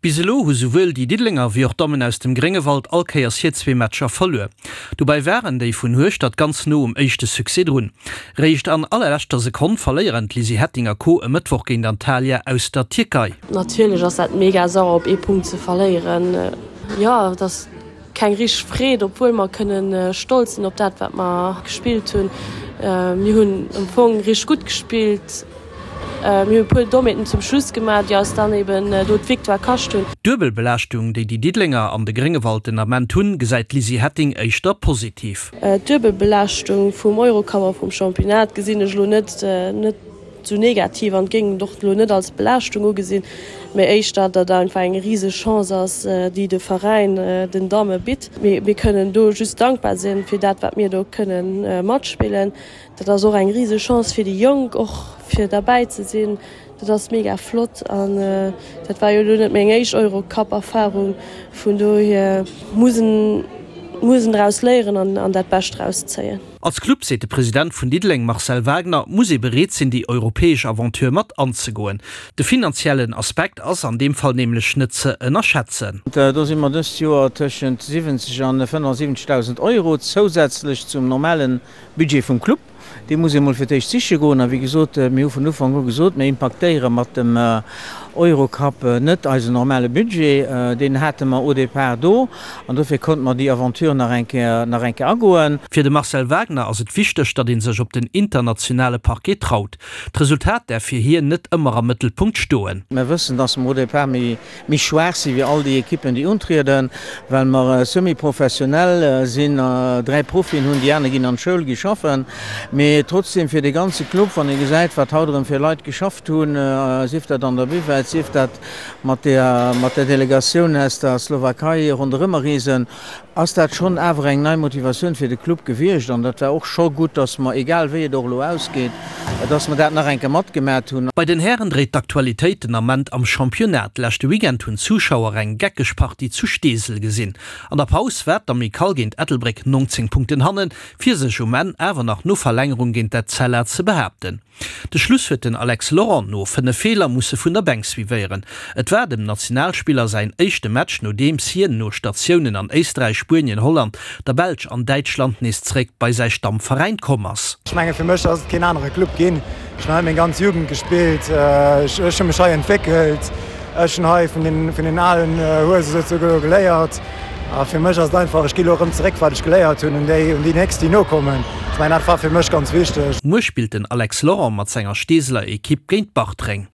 Bis elo hu souwuel déi Diddelenger wéi och d'Dammen aus dem Gréngewald all Kéiers hir zwee Matcher verluer. Dobäi waren déi vun Hueschtert ganz no um éischte Succès drun. Réischt an allerleschter Sekonn verléieren d'Lizzy Hetting a Co. E Mëttwoch géint Antalya aus der Tierkei. Natierlech ass dat mega sauer op ee Punkt ze verléieren. Jo, et ass keng richteg Freed, obwuel mer kënnen stolz sinn op dat wat mer gespillt hunn. Mir hunn am Fong richteg gutt gespillt. Mir hunn e puer Dommheeten zum Schluss gemaach, déi eis dann eben do d'Victoire kascht hunn. D'Duebelbelaaschtung, déi déi Diddelenger an de Gréngewald den Ament hunn, gesäit d'Lizzy Hetting éischter positiv. D'Duebelbelaaschtung vum Eurocup a vum Championnat gesinn ech elo net net esou negativ an géing et och elo net als Belaaschtung ugesinn, mee éischter, datt einfach eng riseg Chance ass, déi de Veräin den Damme bitt. Mir kënnen do just dankbar sinn fir dat, wat mir do kënnen matspillen. Dat ass och eng riseg Chance fir déi Jonk och fir derbäi ze sinn. Dat ass mega flott an dat war jo elo net meng éischt Eurocup-Erfarung. Vun dohier muss en muss en draus léieren an an dat Bescht draus zéien. Als Club, seet de President vun Diddeleng Marcel Wagner, muss ee bereet sinn déi europäesch Aventure mat anzegoen. De finanziellen Aspekt ass an deem Fall nämlech net ze ënnerschätzen. Do si mer dëst Joer tëschent 70 an 75.000 Euro zousätzlech zum normalen Budget vum Club, dee muss ee mol fir d'éischt siche goen. A wéi gesot, mir hu vun Ufank u gesot, mir impaktéiere mat dem Eurocup net eisen normale Budget. Deen hate mer au départ do an dofir konnte mer déi Aventure nach eng Kéier, nach eng Kéier agoen. Fir de Marcel Wagner ass et wichteg, datt ee sech op den internationale Parquet traut. D'Resultat däerf fir hien net ëmmer am Mëttelpunkt stoen. Mir wëssen, datt mer au départ méi méi schwaach si wéi all déi Ekippen, déi untrieden, well mer semi-professionell sinn, 3 Profien hunn, déi aner ginn an d'Schoul, gi schaffen. Mee trotzdem fir de ganze Club, wann ee gesäit, wat haut erëm fir Leit geschafft hunn, sief dat an der Buvette, sief dat mat der mat der Delegatioun aus der Slowakei ronderëmmer reesen, ass dat schonn awer eng nei Motivatioun fir de Club gewiescht an dat war och scho gutt, dass mer, egal wéi et och elo ausgeet, dass mer dat nach eng Kéier matgemat hunn. Bei den Hären dréit d'Aktualitéit den Ament am Championnat. Leschte Weekend hunn d'Zuschauer eng geckeg Partie zu Steesel gesinn. An der Paus war d'Amicale géint Ettelbréck 19 Punkten hannen, fir sech um Enn awer nach no Verlängerung géint d'Etzella ze behaapten. De Schluss huet den Alex Laurent no 5 Feeler musse vun der Bänk suivéieren. Et war dem Nationalspiller säin éischte Match, nodeems hien no Statiounen an Éisträich, Spuenien, Holland, der Belsch an Däitschland nees zeréck bei säi Stammveräin komm ass. Ech menge fir mech ass et keen anere Club ginn. Ech hunn hei meng ganz Jugend gespillt, ech hu mech hei entwéckelt, ech hunn hei vun den alen Huese souzesoe geléiert. A fir mech ass et einfach, ech gi lo erëm zeréck, wat ech geléiert hunn, un déi, un déi nächst, déi nokommen. Ech mengen, dat war fir mech ganz wichteg. Muer spillt den Alex Laurent mat senger Steeseler Ekipp géint Bartreng.